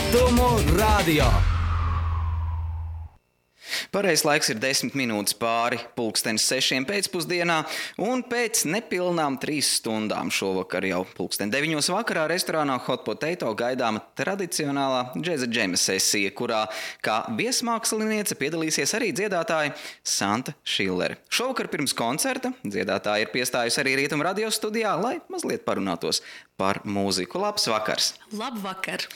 Rietumu radio. Pareizais laiks ir 10 minūtes pāri 6:00 pēcpusdienā, un pēc nepilnām 3 stundām šovakar jau 9:00 vakarā restorānā Hot Potato gaidāma tradicionālā džeza džema sesija, kurā kā viesmāksliniece piedalīsies arī dziedātāja Santa Šillere. Šovakar pirms koncerta dziedātāja ir piestājusi arī Rietumu radio studijā, lai mazliet parunātos par mūziku. Labs vakars! Labvakar!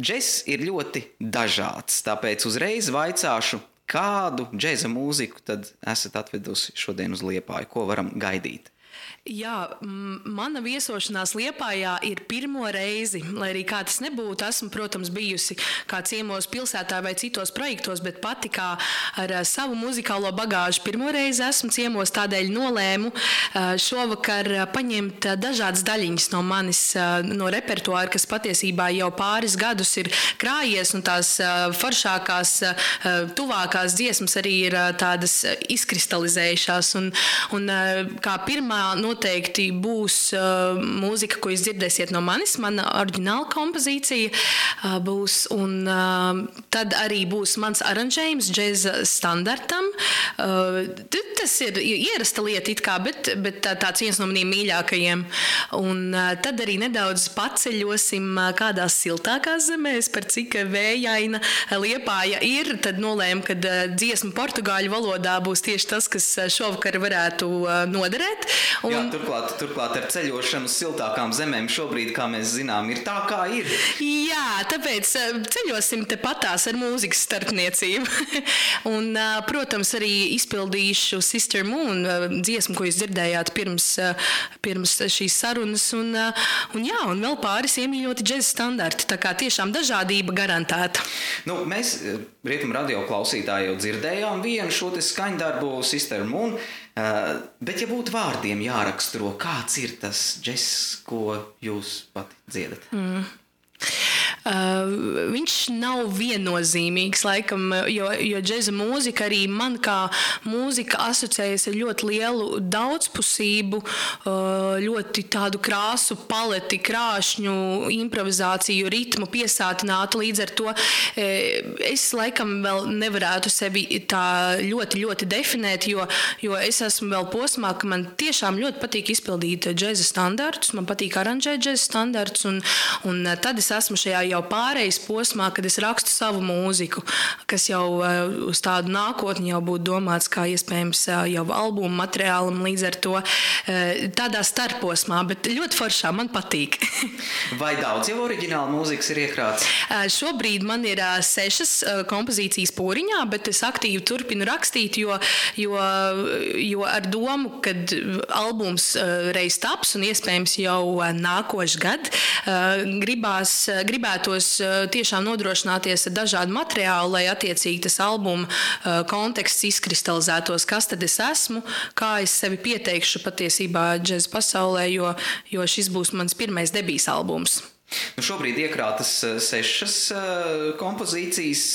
Džess ir ļoti dažāds, tāpēc uzreiz vaicāšu, kādu džeza mūziku tad esat atvedusi šodien uz Liepāju, ko varam gaidīt? Jā, mana viesošanās Liepājā ir pirmo reizi, lai arī kā tas nebūtu. Esmu, protams, bijusi kā ciemos pilsētā vai citos projektos, bet pati kā ar savu muzikālo bagāžu pirmo reizi esmu ciemos, tādēļ nolēmu šovakar paņemt dažādas daļiņas no manis, no repertuāra, kas patiesībā jau pāris gadus ir krājies, un tās foršākās, tuvākās dziesmas arī ir tādas izkristalizējušās. Un kā pirmā noteikti būs mūzika, ko jūs dzirdēsiet no manis, mana oriģināla kompozīcija būs, un tad arī būs mans aranžējums džeza standartam. Tas ir ierasta lieta it kā, bet tāds viens no maniem mīļākajiem. Un tad arī nedaudz paceļosim kādās siltākās zemēs, par cik vējaina Liepāja ir. Tad nolēmu, ka dziesma portugāļu valodā būs tieši tas, kas šovakar varētu noderēt. Jā, turklāt ar ceļošanu uz siltākām zemēm šobrīd, kā mēs zinām, ir tā, kā ir. Jā, tāpēc ceļosim tepatās ar mūzikas starpniecību. Un, protams, arī izpildīšu Sister Moon dziesmu, ko jūs dzirdējāt pirms šīs sarunas. Un vēl pāris iemīļoti džeza standarti. Tā kā tiešām dažādība garantēta. Mēs Rietumu radio klausītāji jau dzirdējām vienu šo te skaņdarbu Sister Moon. Bet, ja būtu vārdiem jāraksturo, kāds ir tas džess, ko jūs pati dziedat? Viņš nav viennozīmīgs, laikam, jo džeza mūzika arī man kā mūzika asociējas ar ļoti lielu daudzpusību, ļoti tādu krāsu paleti, krāšņu, improvizāciju, ritmu piesātinātu. Līdz ar to es laikam vēl nevarētu sevi tā ļoti, ļoti definēt, jo es esmu vēl posmā, ka man tiešām ļoti patīk izpildīt džeza standartus, man patīk aranžēt džeza standartus, un tad es esmu šajā jau pārejas posmā, kad es rakstu savu mūziku, kas jau uz tādu nākotni jau būtu domāts kā iespējams jau albumu materiālam, līdz ar to tādā starposmā, bet ļoti foršā, man patīk. Vai daudz jau oriģināla mūzikas ir iekrāts? Šobrīd man ir 6 kompozīcijas pūriņā, bet es aktīvi turpinu rakstīt, jo ar domu, kad albums reiz taps un iespējams jau nākošais gad, gribētos tiešām nodrošināties ar dažādu materiālu, lai attiecīgi tas albuma konteksts izkristalizētos, kas tad es esmu, kā es sevi pieteikšu patiesībā džeza pasaulē, jo šis būs mans pirmais debijas albums. Šobrīd iekrātas 6 kompozīcijas,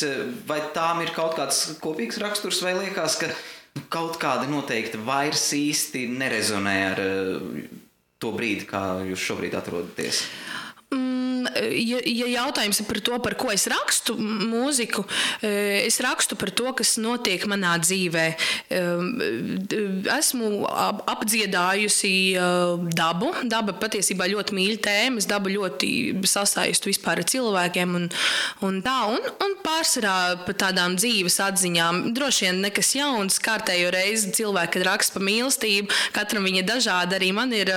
vai tām ir kaut kāds kopīgs raksturs, vai liekas, ka kaut kāda noteikti vairs īsti nerezonē ar to brīdi, kā jūs šobrīd atrodaties? Ja jautājums ir par to, par ko es rakstu mūziku, es rakstu par to, kas notiek manā dzīvē. Esmu apdziedājusi dabu. Daba patiesībā ļoti mīļa tēma. Es dabu ļoti sasaistu vispār ar cilvēkiem un pārsvarā par tādām dzīves atziņām. Droši vien nekas jauns, kārtējo reizi cilvēki, kad raksta par mīlestību, katram viņa dažāda. Arī man ir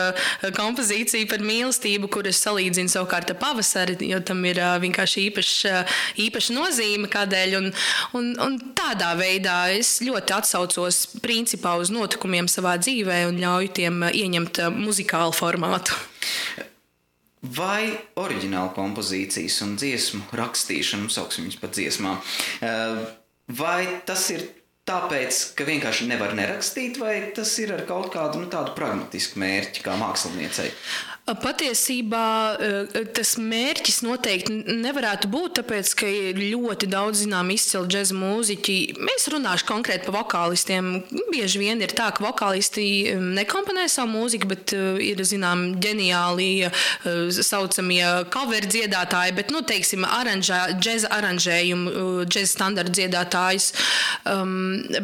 kompozīcija par mīlestību, kur es salīdzinu savukārt ar pavasari, jo tam ir vienkārši īpaša nozīme kādēļ. Un tādā veidā es ļoti atsaucos principā uz notikumiem savā dzīvē un ļauju tiem ieņemt muzikālu formātu. Vai oriģināla kompozīcijas un dziesmu rakstīšana, sauksim viņus par dziesmām, vai tas ir tāpēc, ka vienkārši nevar nerakstīt, vai tas ir ar kaut kādu tādu pragmatisku mērķi kā māksliniecei? Patiesībā tas mērķis noteikti nevarētu būt, tāpēc, ka ir ļoti daudz zinām izcili džeza mūziķi. Es runāšu konkrēti par vokālistiem. Bieži vien ir tā, ka vokālisti nekomponē savu mūziku, bet ir zinām ģeniāli saucamie cover dziedātāji, bet, teiksim, džeza aranžējumu, džeza standarta dziedātājs.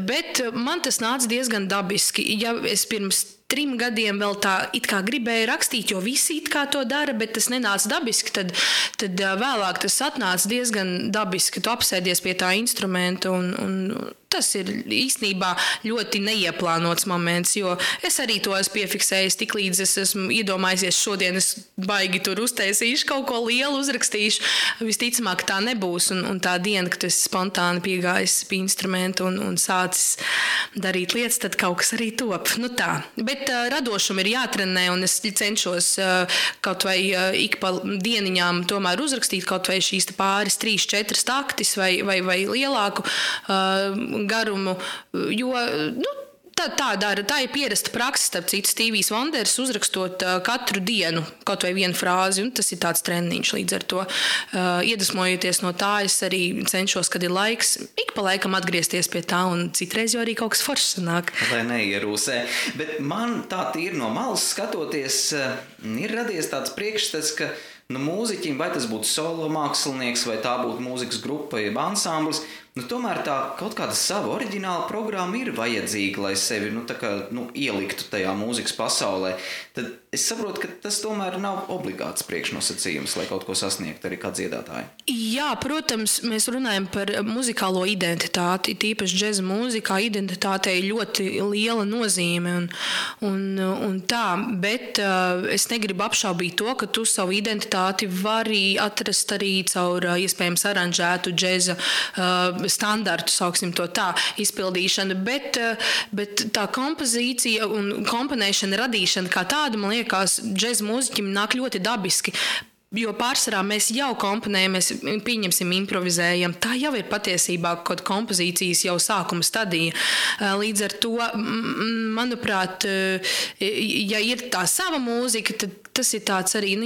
Bet man tas nāca diezgan dabiski. Ja es pirms 3 gadiem vēl tā it kā gribēju rakstīt, jo visi it kā to dara, bet tas nenāca dabiski, tad vēlāk tas atnāca diezgan dabiski. Tu apsēdies pie tā instrumenta un tas ir īstenībā ļoti neieplānots moments, jo es arī to esmu piefiksējis, tik līdz es esmu iedomājusies šodien, es baigi tur uztaisīšu, kaut ko lielu uzrakstīšu. Visticamāk tā nebūs, un tā diena, kad es spontāni piegājis pie instrumenta un sācis darīt lietas, tad kaut kas arī top. Tā. Bet radošumu ir jātrenē, un es cenšos kaut vai ik pa dieniņām tomēr uzrakstīt kaut vai šīs pāris 3-4 taktis vai lielāku garumu, jo tā ir pierasta praksa, starp citu, Stevijs Wonders uzrakstot katru dienu kaut vai vienu frāzi, un tas ir tāds treniņš līdz ar to. Iedvesmojoties no tā, es arī cenšos, kad ir laiks, ik pa laikam atgriezties pie tā, un citreiz jau arī kaut kas foršs sanāk. Lai neierūsē. Bet man tā tīri no malas skatoties, ir radies tāds priekšstats, ka mūziķim, vai tas būtu solo mākslinieks, vai tā būtu mūzikas grupa, jeb ansamblis, tomēr tā kaut kāda sava oriģināla programma ir vajadzīga, lai sevi ieliktu tajā mūzikas pasaulē. Tad es saprotu, ka tas tomēr nav obligāts priekšnosacījums, lai kaut ko sasniegtu arī kā dziedātāji. Jā, protams, mēs runājam par muzikālo identitāti. Tīpaši džeza mūzikā identitātei ļoti liela nozīme un tā, bet es negribu apšaubīt to, ka tu savu identitāti vari atrast arī caur iespējams aranžētu džeza standartu, sauksim to tā, izpildīšanu, bet tā kompozīcija un komponēšana, radīšana kā tāda, man liekas, džeza mūziķim nāk ļoti dabiski. Jo pārsvarā mēs jau komponējam, mēs pieņemsim, improvizējam. Tā jau ir patiesībā kaut kompozīcijas jau sākuma stadija. Līdz ar to, manuprāt, ja ir tā sava mūzika, tad tas ir tāds arī,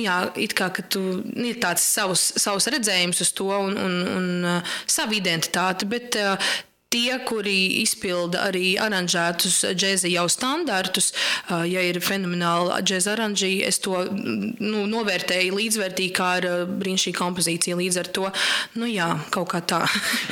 it kā, ka tu ir tāds savs redzējums uz to un savu identitāti, bet tie, kuri izpilda arī aranžētus džeza jau standartus, ja ir fenomenāli džeza aranži, es to novērtēju līdzvērtīgi kā ar brīnišķīgu kompozīciju. Līdz ar to, kaut kā tā.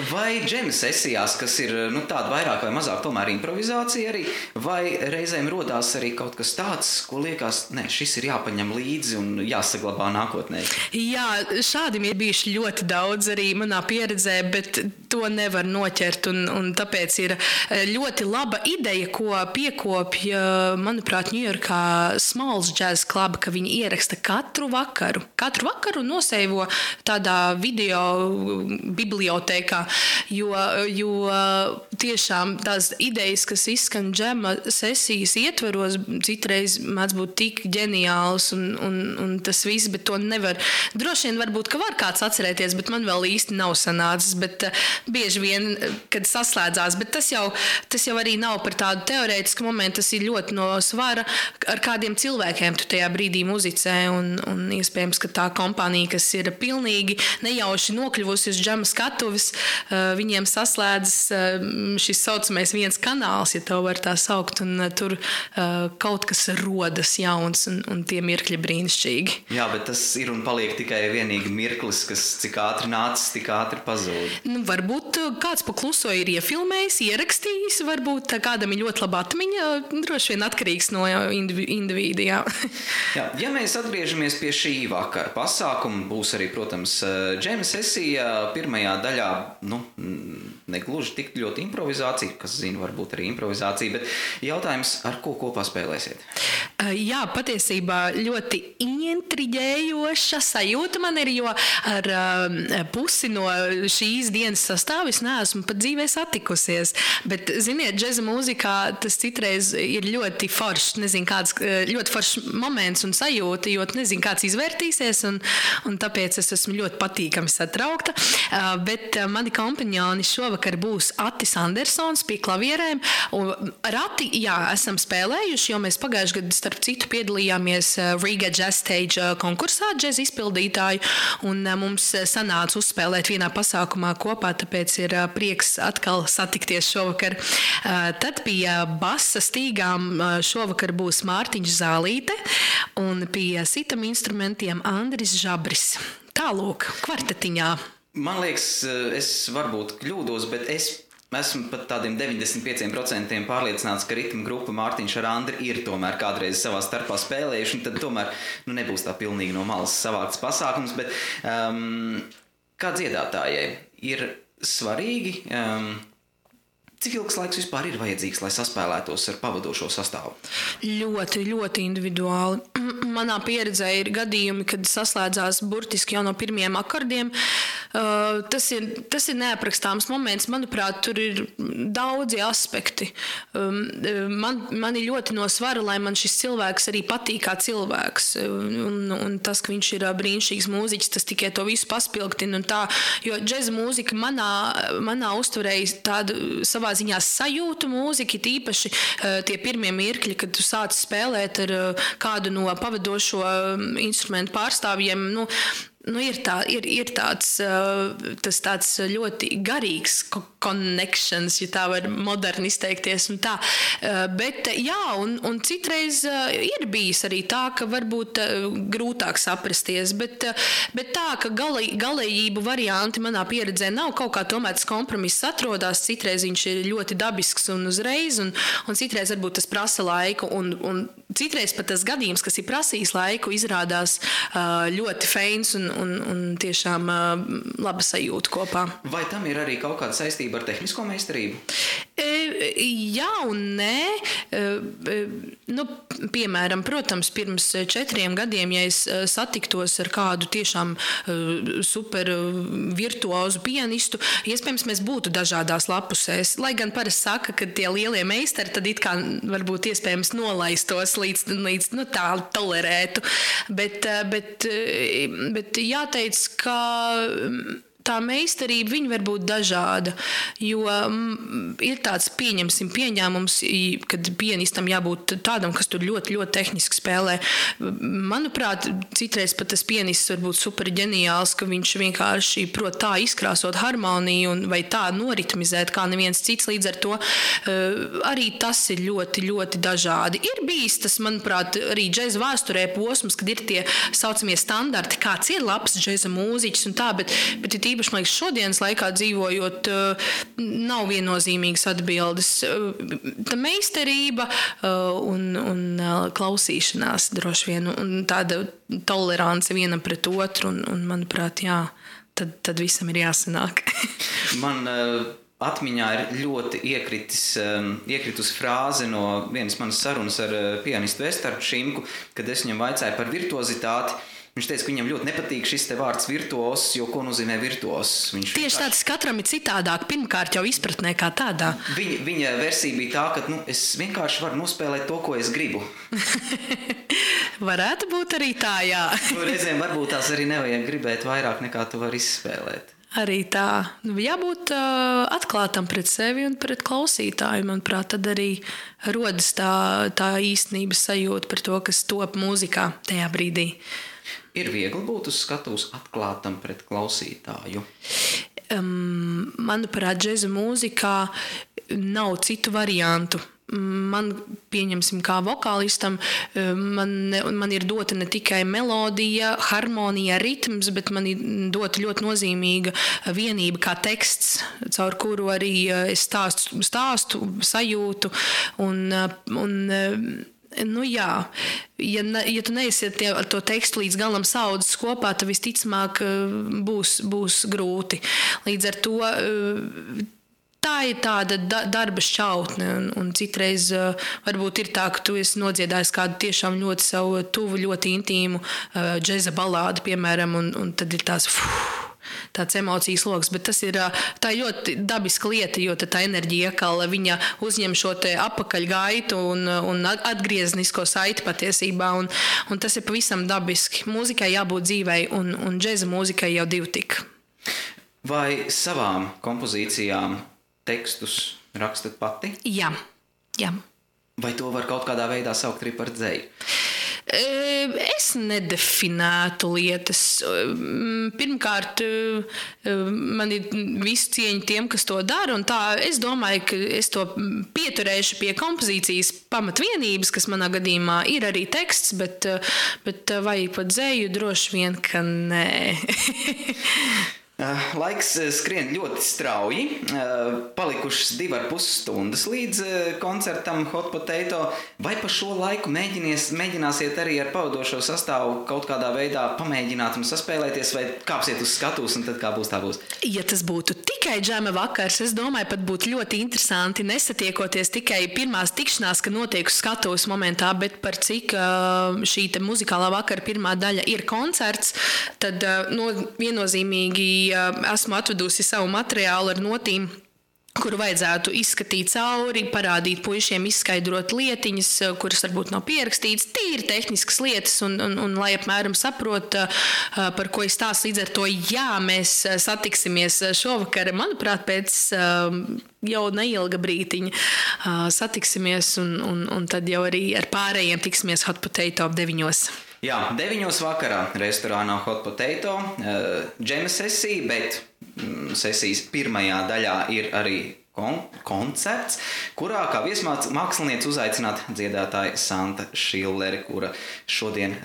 Vai džema sesijās, kas ir tāda vairāk vai mazāk tomēr improvizācija arī, vai reizēm rodās arī kaut kas tāds, ko liekas, šis ir jāpaņem līdzi un jāsaglabā nākotnē? Jā, šādim ir bijuši ļoti daudz arī manā pieredzē, bet to nevar noķert un tāpēc ir ļoti laba ideja, ko piekopja, manuprāt, Ņujorkā Smalls Jazz Club, ka viņi ieraksta katru vakaru noseivo tādā video bibliotēkā, jo tiešām tās idejas, kas izskan džema sesijas ietvaros, citreiz mēdz būt tik ģeniāls un tas viss, bet to nevar. Droši vien varbūt, ka var kāds atcerēties, bet man vēl īsti nav sanācis, bet bieži vien, kad saslēdzās, bet tas jau arī nav par tādu teorētisku momentu, tas ir ļoti no svara, ar kādiem cilvēkiem tu tajā brīdī muzicē, un iespējams, ka tā kompānija, kas ir pilnīgi nejauši nokļuvusi uz džema skatuves, viņiem saslēdzas šis saucamais viens kanāls, ja to var tā saukt, un tur kaut kas rodas jauns, un tie mirkļi brīnišķīgi. Jā, bet tas ir un paliek tikai vienīgi mirklis, kas cik ātri nācis, tik ātri pazūd. Varbūt kāds pakluso ir iefilmējis, ierakstījis, varbūt kādam ir ļoti laba atmiņa, droši vien atkarīgs no individu, jā. Jā, ja mēs atgriežamies pie šī vakara pasākuma, būs arī, protams, džema sesija pirmajā daļā, negluži tik ļoti improvizācija, kas zina, varbūt arī improvizācija, bet jautājums, ar ko kopā spēlēsiet? Jā, patiesībā ļoti intriģējoša sajūta man ir, jo ar pusi no šīs dienas sastāvu es neesmu pat dzīvē satikusies, bet, ziniet, džeza mūzikā tas citreiz ir ļoti foršs, ļoti foršs moments un sajūta, jo nezinu, kāds izvērtīsies, un tāpēc es esmu ļoti patīkami satraukta, bet mani kompanjoni šovakar šovakar būs Atis Andersons pie klavierēm. Un ar Ati, esam spēlējuši, jo mēs pagājuši gadu, starp citu, piedalījāmies Riga Jazz Stage konkursā džez izpildītāju, un mums sanāca uzspēlēt vienā pasākumā kopā, tāpēc ir prieks atkal satikties šovakar. Tad pie basa stīgām šovakar būs Mārtiņš Zālīte un pie sitam instrumentiem Andris Žabris. Tālūk, kvartetiņā. Man liekas, es varbūt kļūdos, bet es esmu pat tādiem 95% pārliecināts, ka ritma grupa Mārtiņš ar Andri ir tomēr kādreiz savā starpā spēlējuši, un tad tomēr nebūs tā pilnīgi no malas savākts pasākums, bet kā dziedātājai ir svarīgi, cik ilgs laiks vispār ir vajadzīgs, lai saspēlētos ar pavadošo sastāvu? Ļoti, ļoti individuāli. Manā pieredzē ir gadījumi, kad saslēdzās burtiski jau no pirmiem akordiem. Tas ir neaprakstāms moments. Manuprāt, tur ir daudzi aspekti. Man ir ļoti no svara, lai man šis cilvēks arī patīk kā cilvēks. Un tas, ka viņš ir brīnišķīgs mūziķis, tas tikai to visu paspilgtina. Jo džeza mūzika manā uztverēja tādu savā ziņā sajūtu mūzika, tīpaši tie pirmie mirkļi, kad tu sāc spēlēt ar kādu no pavadošo instrumentu pārstāvjiem, ir tāds ļoti garīgs connections, ja tā var moderni izteikties un tā. Bet un citreiz ir bijis arī tā, ka varbūt grūtāk saprasties, bet tā, ka galējību varianti manā pieredzē nav, kaut kā tomēr tas kompromiss atrodās, citreiz viņš ir ļoti dabisks un uzreiz, un citreiz varbūt tas prasa laiku, un citreiz pat tas gadījums, kas ir prasījis laiku, izrādās ļoti feins un tiešām laba sajūta kopā. Vai tam ir arī kaut kāda saistība ar tehnisko meistarību? Jā un nē. Piemēram, protams, pirms 4 gadiem, ja es satiktos ar kādu tiešām super virtuozu pianistu, iespējams, mēs būtu dažādās lapusēs. Lai gan parasti saka, ka tie lielie meistari tad it kā varbūt iespējams nolaistos līdz tā tolerētu. Bet jāteic, ka tā meistarība viņa var būt dažāda, jo ir tāds pieņēmums, kad pianistam jābūt tādam, kas tur ļoti, ļoti tehniski spēlē. Manuprāt, citreiz pat tas pianists var būt super ģeniāls, ka viņš vienkārši prot tā izkrāsot harmoniju vai tā noritmizēt kā neviens cits, līdz ar to arī tas ir ļoti, ļoti dažādi. Ir bijis tas, manuprāt, arī džeza vēsturē posms, kad ir tie saucamie standarti, kāds ir labs džeza mūziķis un tā, bet ir īpaši, man liekas, šodienas laikā dzīvojot, nav viennozīmīgas atbildes. Tā meistarība un klausīšanās droši vien, un tāda tolerance vienam pret otru, un manuprāt, tad visam ir jāsanāk. Man atmiņā ir ļoti iekritusi frāze no vienas manas sarunas ar pianistu Vestardu Šimku, kad es viņam vaicāju par virtuozitāti. Viņš teica, ka viņam ļoti nepatīk šis te vārds virtuos, jo ko nozīmē virtuos? Tieši tāds katram ir citādāk, pirmkārt jau izpratnē kā tādā. Viņa versija bija tā, ka es vienkārši varu nospēlēt to, ko es gribu. Varētu būt arī tā, jā. Reizēm varbūt tās arī nevajag gribēt vairāk, nekā tu vari izspēlēt. Arī tā. Jābūt atklātam pret sevi un pret klausītāju. Manuprāt, tad arī rodas tā īstenības sajūta par to, kas top mūzikā tajā brīdī. Ir viegli būt uz skatuves atklātam pret klausītāju? Manuprāt, džeza mūzikā nav citu variantu. Man, pieņemsim, kā vokālistam, man ir dota ne tikai melodija, harmonija, ritms, bet man ir dota ļoti nozīmīga vienība kā teksts, caur kuru arī es stāstu sajūtu ja tu neesiet ar to tekstu līdz galam saudzes kopā, tad visticamāk būs grūti. Līdz ar to tā ir tāda darba šķautne, un citreiz varbūt ir tā, ka tu esi nodziedājis kādu tiešām ļoti savu tuvu, ļoti intīmu džeza balādu, piemēram, un tad ir tāds emocijas loks, bet tā ir ļoti dabiska lieta, jo tā enerģija iekala, viņa uzņem šo te apakaļgaitu un atgrieznisko saiti patiesībā, un tas ir pavisam dabiski. Mūzikai jābūt dzīvei, un džeza mūzikai jau divi tik. Vai savām kompozīcijām tekstus rakstat pati? Jā. Vai to var kaut kādā veidā saukt arī par dzeju? Es nedefinētu lietas. Pirmkārt, man ir visu cieņu tiem, kas to dara, un tā es domāju, ka es to pieturēšu pie kompozīcijas pamatvienības, kas manā gadījumā ir arī teksts, bet vai pat dzeju droši vien, ka nē. Laiks skrien ļoti strauji. Palikušas 2,5 stundas līdz koncertam Hot Potato. Vai pa šo laiku mēģināsiet arī ar pavadošo sastāvu kaut kādā veidā pamēģināt un saspēlēties, vai kāpsiet uz skatuves un tad kā būs, tā būs? Ja tas būtu tikai džema vakars, es domāju, pat būtu ļoti interesanti nesatiekoties tikai pirmās tikšanās, ka notiek uz skatuves momentā, bet par cik šī te muzikālā vakara pirmā daļa ir koncerts, tad viennozīmīgi esmu atvedusi savu materiālu ar notīm, kuru vajadzētu izskatīt cauri, parādīt puišiem, izskaidrot lietiņas, kuras varbūt nav pierakstītas, tīri tehniskas lietas, un lai apmēram saprot, par ko es stāstu. Līdz ar to, jā, mēs satiksimies šovakar, manuprāt, pēc jau neilga brītiņa satiksimies, un tad jau arī ar pārējiem tiksimies Hot Potato 9. Jā, 9 vakarā restorānā Hot Potato, džema sesija, bet sesijas pirmajā daļā ir arī koncerts, kurā kā viesmāksliniece uzaicināta dziedātāja Santa Šilleri, kura šodien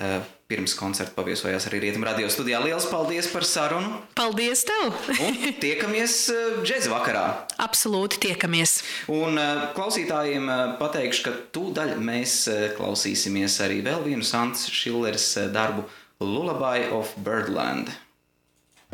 pirms koncerta paviesojās arī Rietumu radio studijā. Liels paldies par sarunu! Paldies tev! Un tiekamies džeza vakarā! Absolūti tiekamies! Un klausītājiem pateikšu, ka tūdaļ mēs klausīsimies arī vēl vienu Santas Šilleres darbu Lullaby of Birdland.